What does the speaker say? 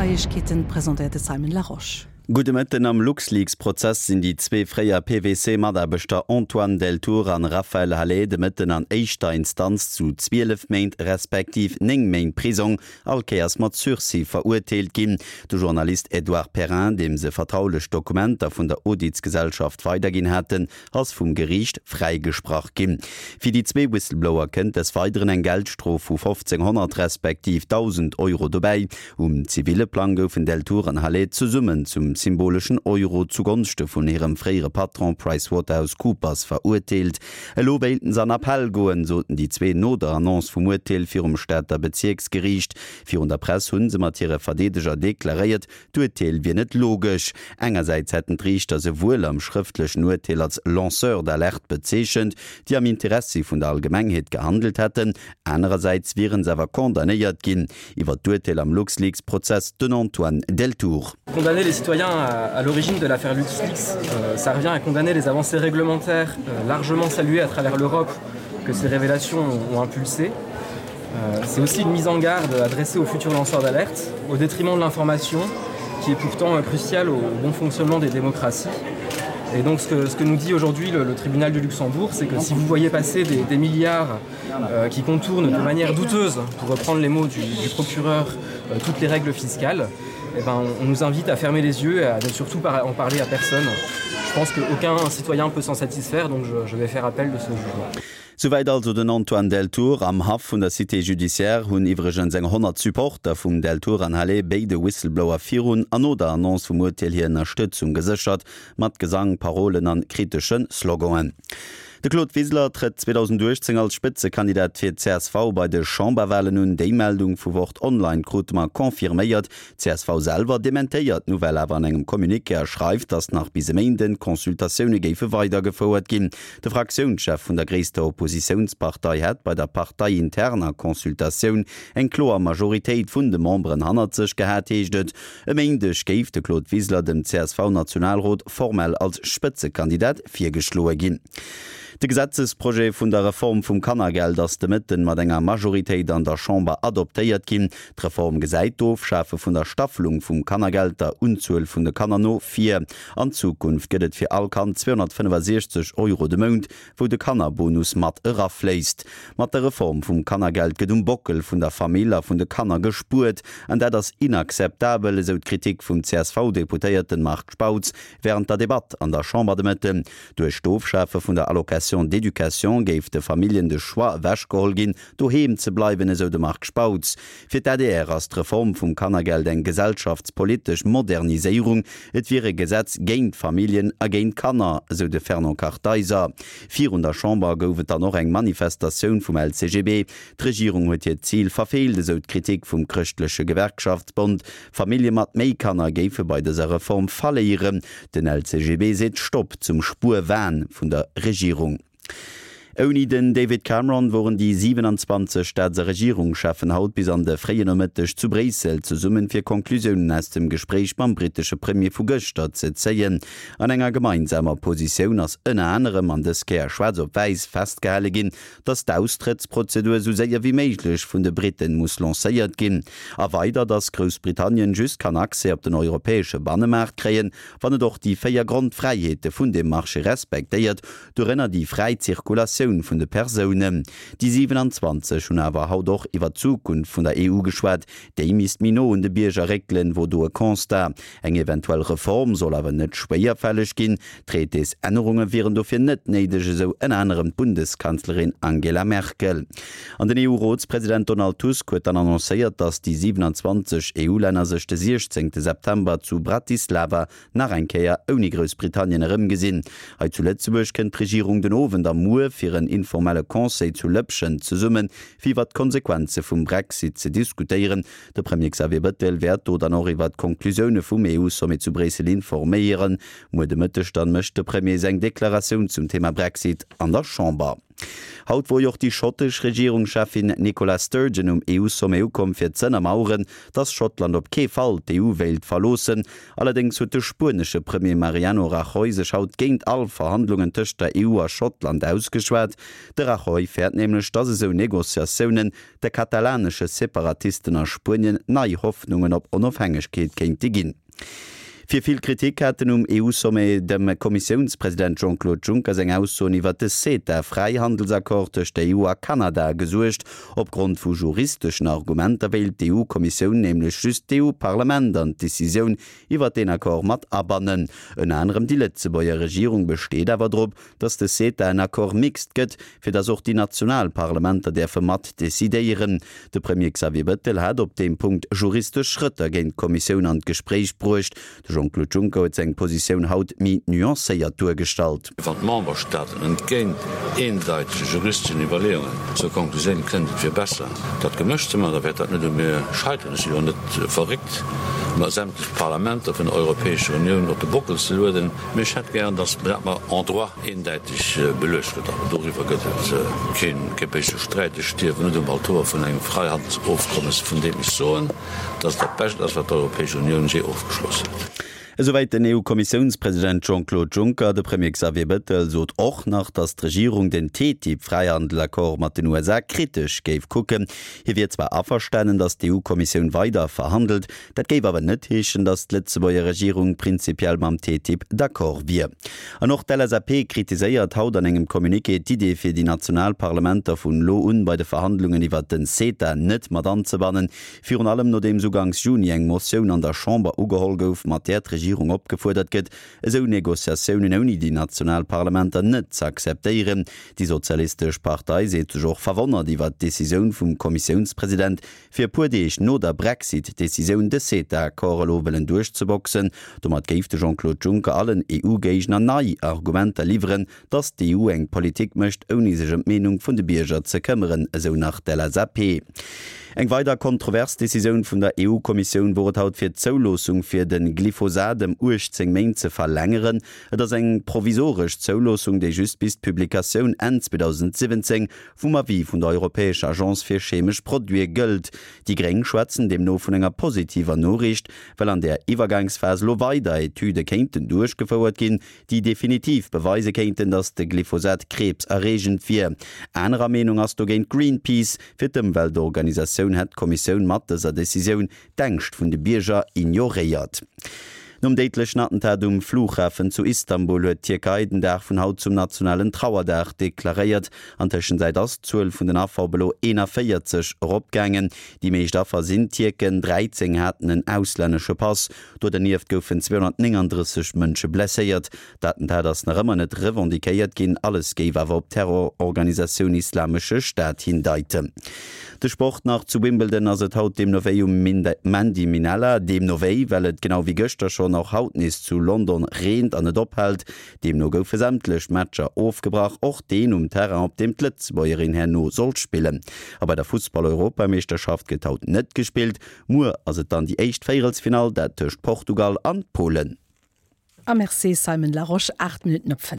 Neiegkeeten, presentéiert de Simon Larosche. Gudde Mëtten. Am LuxLeaks-Prozess sinn déi zwee fréier PwC-Mataarbechter Antoine Deltour an Raphaël Halet de Mëtten an éischter Instanz zu 12 Méint respektiv 9 Méint Prisong, all Kéiers mat Sursis, verurteelt ginn. De Journalist Edouard Perrin, deem se vertraulech Dokumenter vun der Auditsgesellschaft weiderginn haten, ass vum Geriicht fräigesprach ginn. Fir déi zwee Whistleblower kënnt des Weideren eng Geldstrof vu 1.500 respektiv 1.000 Euro dobäi. Um ziville Plang goufen Deltour an Halet zesummen zum symboleschen Euro zugonschte vun hirem fréiere Patron PricewaterhouseCoopers verurteelt. Elo wéilten se an Appell goen, soten déi zwee no der Annonce vum Urteel virum Stater Bezierksgeriicht. Virun der Press hu se mat hire Verdeedeger deklaréiert, D'Urteel wier net logesch. Engersäits hätten d'Riichter se wuel am schrëftlechen Urteel als Lanceurs d'alerte bezeechent, déi am Interessi vun der Allgemengheet gehandelt hätten, anerersäits wieren se awer condamnéiert ginn. Iwwer d'Urteel am LuxLeaks-Prozess den Antoine Deltour. Condamner les citoyens à l'origine de l'affaire LuxLeaks, ça revient à condamner les avancées réglementaires largement saluées à travers l'Europe que ces révélations ont impulsées. Euh, c'est aussi une mise en garde adressée aux futurs lanceurs d'alerte, au détriment de l'information qui est pourtant cruciale au bon fonctionnement des démocraties. Et donc ce que, ce que nous dit aujourd'hui le, le tribunal du Luxembourg, c'est que si vous voyez passer des, des milliards euh, qui contournent de manière douteuse, pour reprendre les mots du, du procureur, euh, toutes les règles fiscales, eh ben, on, on nous invite à fermer les yeux et à ne surtout pas en parler à personne. Je pense qu'aucun citoyen peut s'en satisfaire, donc je, je vais faire appel de ce jugement. Souwäit also den Antoine Deltour. Am Haff vun der Cité judiciaire hunn iwwregens eng 100 Supporter vum Deltour an Halet béide Whistleblower virun an no der Annonce vum Urteel hir Ënnerstëtzung geséchert, mat Gesang, Parolen an kritesche Sloganen. De Claude Wiseler trëtt 2018 als Spëtzekandidat fir d'CSV bei de Chamberwalen un. Déi Meldung vu Wort Online krute mer confirméiert. D'CSV selwer dementéiert d'Nouvelle awer an engem Communiqué a schreift, datt nach bis e Méinden d'Consultatioune géife weidergefouert ginn. De Fraktiounschef vun der gréisster Oppositiounspartei hätt bei der parteiinterner Consultatioun eng kloer Majoritéit vun de Memberen hannert sech gehat, heescht et. E Méindeg géif de Claude Wiseler dem CSV-Nationalrot formell als Spëtzekandidat virgeschloe ginn. De Gesetzesprojet vun der Reform vum Kannergeld ass de Mëtten mat enger Majoritéit an der Chamber adoptéiert ginn. D'Reform gesäit d'Ofschafe vun der Staffelung vum Kannergeld der Unzuel vun de Kanner no vir. An Zukunft gëtt et fir all Kand 265 Euro de Mount, wou de Kannerbonus mat erafléisst. Mat der Reform vum Kannergeld gëtt um Bockel vun der Famill a vun de Kanner gespuert, an dat ass inakzeptabel, esou d'Kritik vum CSV-Deputéierten Marc Spautz wärend der Debatt an der Chamber de Mëtten. Duerch d'Ofschafe vun der Allocation d'éducation géif de Familljen de Choix ewechgeholl ginn, doheem ze bleiwen, esou de Marc Spautz. Fir d'ADR ass d'Reform vum Kannergeld eng gesellschaftspolitesch Moderniséierung. Et wier e Gesetz géint d'Familljen a géint d'Kanner, esou de Fernand Kartheiser. Virun der Chamber gouf et dann och eng Manifestatioun vum LCGB. D'Regierung huet hiert Zil verfeelt, esou d'Kritik vum Chrëschtleche Gewerkschaftsbond. Famillje mat méi Kanner géife bei dëser Reform verléieren. Den LCGB seet Stopp zum Spuerwahn vun der Regierung. Ouni den David Cameron woren déi 27 Staats a Regierungscheffen haut bis an de fréien Nomëtteg zu Bréissel zesummen, fir Conclusiounen aus dem Gespréich mam brittesche Premier vu gëschter ze zéien. An enger gemeinsamer Positioun ass ënner anerem, an dës Kéier schwaarz op wäiss, festgehale ginn, datt d'Austrëttsprozedur esou séier wéi méiglech vun de Briten muss lancéiert ginn. A weider, datt Groussbritannien just kann Accès op den europäesche Bannemaart kréien, wann et och déi 4 Grondfräiheete vun deem Marché respektéiert, dorënner déi fräi Zirkulatioun vun de Persounen. Déi 27 hunn awer haut och iwwer d'Zukunft vun der EU geschwat. Déi misst méi no un de Bierger réckelen, wor do e Constat. Eng eventuell Reform soll awer net schwéierfälleg ginn. Traités-Ännerunge wieren dofir net néideg, esou ënner anerem d'Bundeskanzlerin Angela Merkel. An den EU-Rotspresident Donald Tusk huet dann annoncéiert, datt déi 27 EU-Länner sech de 16 September zu Bratislava nach eng Kéier ouni Groussbritannien erëmgesinn. Hei zu Lëtzebuerg kënnt d'Regierung den Owend a muer fir en informelle Conseil zu Lëppschent zesummen, fir iwwer d'Konsequenze vum Brexit ze diskutéieren. De Premier Xavier Bëttel wäert do dann och iwwer d'Konklusioune vum EU-Sommet zu Bréissel informéieren. Muer de Mëtteg dann mécht de Premier seng Deklaratioun zum Thema Brexit an der Chamber. Haut wor jo och déi schottesch Regierungscheffin Nicola Sturgeon um EU-Sommet ukomm fir z'ënnermaueren, datt Schottland op kee Fall d'EU wéilt verloossen. Allerdéngs huet de spuenesche Premier Mariano Rajoy sech haut géint all Verhandlungen tëscht der EU a Schottland ausgeschwat. De Rajoy fäert nämlech, datt esou Negociatiounen de katalanesche Separatisten a Spuenien nei Hoffnungen op Onofhängegkeet kéinte ginn. Fir vill Kritik haten um EU-Sommet dem Kommissiounspresident Jean-Claude Juncker seng Aussoen iwwert de CETA-Fräihandelsaccord tëscht der EU a Kanada gesuergt. Opgrond vu juristeschen Argumenter wéilt d'EU-Kommissioun nämlech just d'EU-Parlament an d'Decisioun iwwert deen Accord mat abannen. Ënner anerem déi Lëtzebuerger Regierung besteet awer drop, datt de CETA en Accord mixte gëtt, fir datt och déi national Parlamenter däerfe mat decidéieren. De Premier Xavier Bettel hat op deem Punkt juristesch Schrëtter géint d'Kommissioun an d'Gespréich bruecht. De Jean-Claude Juncker huet seng Positioun haut méi nuancéiert duergestallt. Wann d'Memberstaaten entgéint eendeitege juristeschen Iwwerleeungen zur Konklusioun kënnen, et wier besser, dat gemëscht ze maachen, da wäert dat net u mir scheiteren. Ech si jo net verréckt, mer sämtlech Parlamenter vun der Europäescher Unioun op de Bockel ze lueden. Mee ech hätt gären, datt dat mer en droit eendäiteg beluecht gëtt. Awer doriwwer gëtt et kee béise Sträit. Ech stierwen net um Altor vun engem Freihandelsofkommes, vun deem ech soen, datt et dat Bescht ass, wat d'Europäesch Unioun jee ofgeschloss huet. Esouwäit den EU-Kommissiounspresident Jean-Claude Juncker. De Premier Xavier Bettel sot och nach, datt d'Regierung den TTIP-Fräihandelaccord mat den USA kritesch géif kucken. Hie wier zwar averstanen, datt d'EU-Kommissioun weider verhandelt, Dat géif awer net heeschen, datt d'Lëtzebuerger Regierung prinzipiell mam TTIP d'accord wier. An och d'LSAP kritiséiert haut an engem Communiqué d'Idee fir déi national Parlamenter vun elo un bei de Verhandlungen iwwert den CETA net mat anzebannen. Virun allem nodeems uganks Juni eng Motioun an der Chamber ugeholl gouf, mat där d'Regierung opgefuerdert gëtt, esou Negociatiounen ouni déi national Parlamenter net ze akzeptéieren. Déi sozialistesch Partei seet sech och verwonnert iwwert d'Decisioun vum Kommissiounspresident, fir e puer Deeg no der Brexit-Decisioun de CETA-Accord elo wëllen duerchzeboxen. Domat géif de Jean-Claude Juncker allen EU-Géigner nei Argumenter liwweren, datt d'EU eng Politik mécht, ouni sech ëm d'Meenung vun de Bierger ze këmmeren, esou nach d'LSAP. Eng weider kontrovers Decisioun vun der EU-Kommissioun wor et haut fir d'Zouloossung fir de Glyphosat ëm 18 Méint ze verlängeren. Et ass eng provisoresch Zouloossung, déi just bis d'Publikatioun Enn 2017 vum Avis vun der Europäescher Agence fir chemesch Produite gëllt. Déi Gréng schwätzen deemno vun enger positiver Noriicht, well an där Iwwergangsphas elo weider Etüde kéinten duerchgefouert ginn, déi definitiv beweise kéinten, datt de Glyphosat kriibserreegend wier. Anerer Meenung ass dogéint Greenpeace. Fir d'Ëmweltorganisatioun hätt d'Kommissioun mat dëser Decisioun d'Ängscht vun de Bierger ignoréiert. Nom déidlechen Attentat um Flughafen zu Istanbul huet d'Tierkei den Dag vun haut zum nationalen Trauerdag deklaréiert. An Tëschenzäit ass d'Zuel vun den Affer op elo 41 eropgaangen. Déi meescht Affer sinn Tierken, 13 haten en auslännesche Pass. Do dernieft goufen 239 Mënsche blesséiert. D'Attentat ass nach ëmmer net revendiquéiert ginn, alles géif awer op d'Terrororganisatioun Islamesche Staat hindeiten. De Sport nach, Zu Wimbledon ass et haut deemno wéi um Mandy Minella. Deemno wéi, well et genau wéi gëschter schonn och haut nees zu London reent an net ophält. Deemno goufe sämtlech Matcher ofgebrach, och deen um Terrain, op deem d'Lëtzebuergerin herno soll spillen. A bei der Fussball-Europameeschterschaft gëtt haut net gespillt. Muer ass et dann déi éischt Véierelsfinall, dat tëscht Portugal an Polen. A merci Simon Larosche, 8 Minutten op 5.